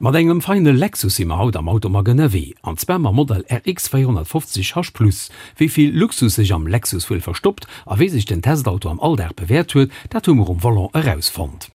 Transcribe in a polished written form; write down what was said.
Mat engem feine Lexus si mer haut am Automag ënnerwee, an zwar mam Modell RX 450 H Plus. Wéi vill Luxus sech am Lexus wuel verstoppt a wéi sech den Testauto am Alldag bewäert huet, dat hu mer um Volant erausfonnt.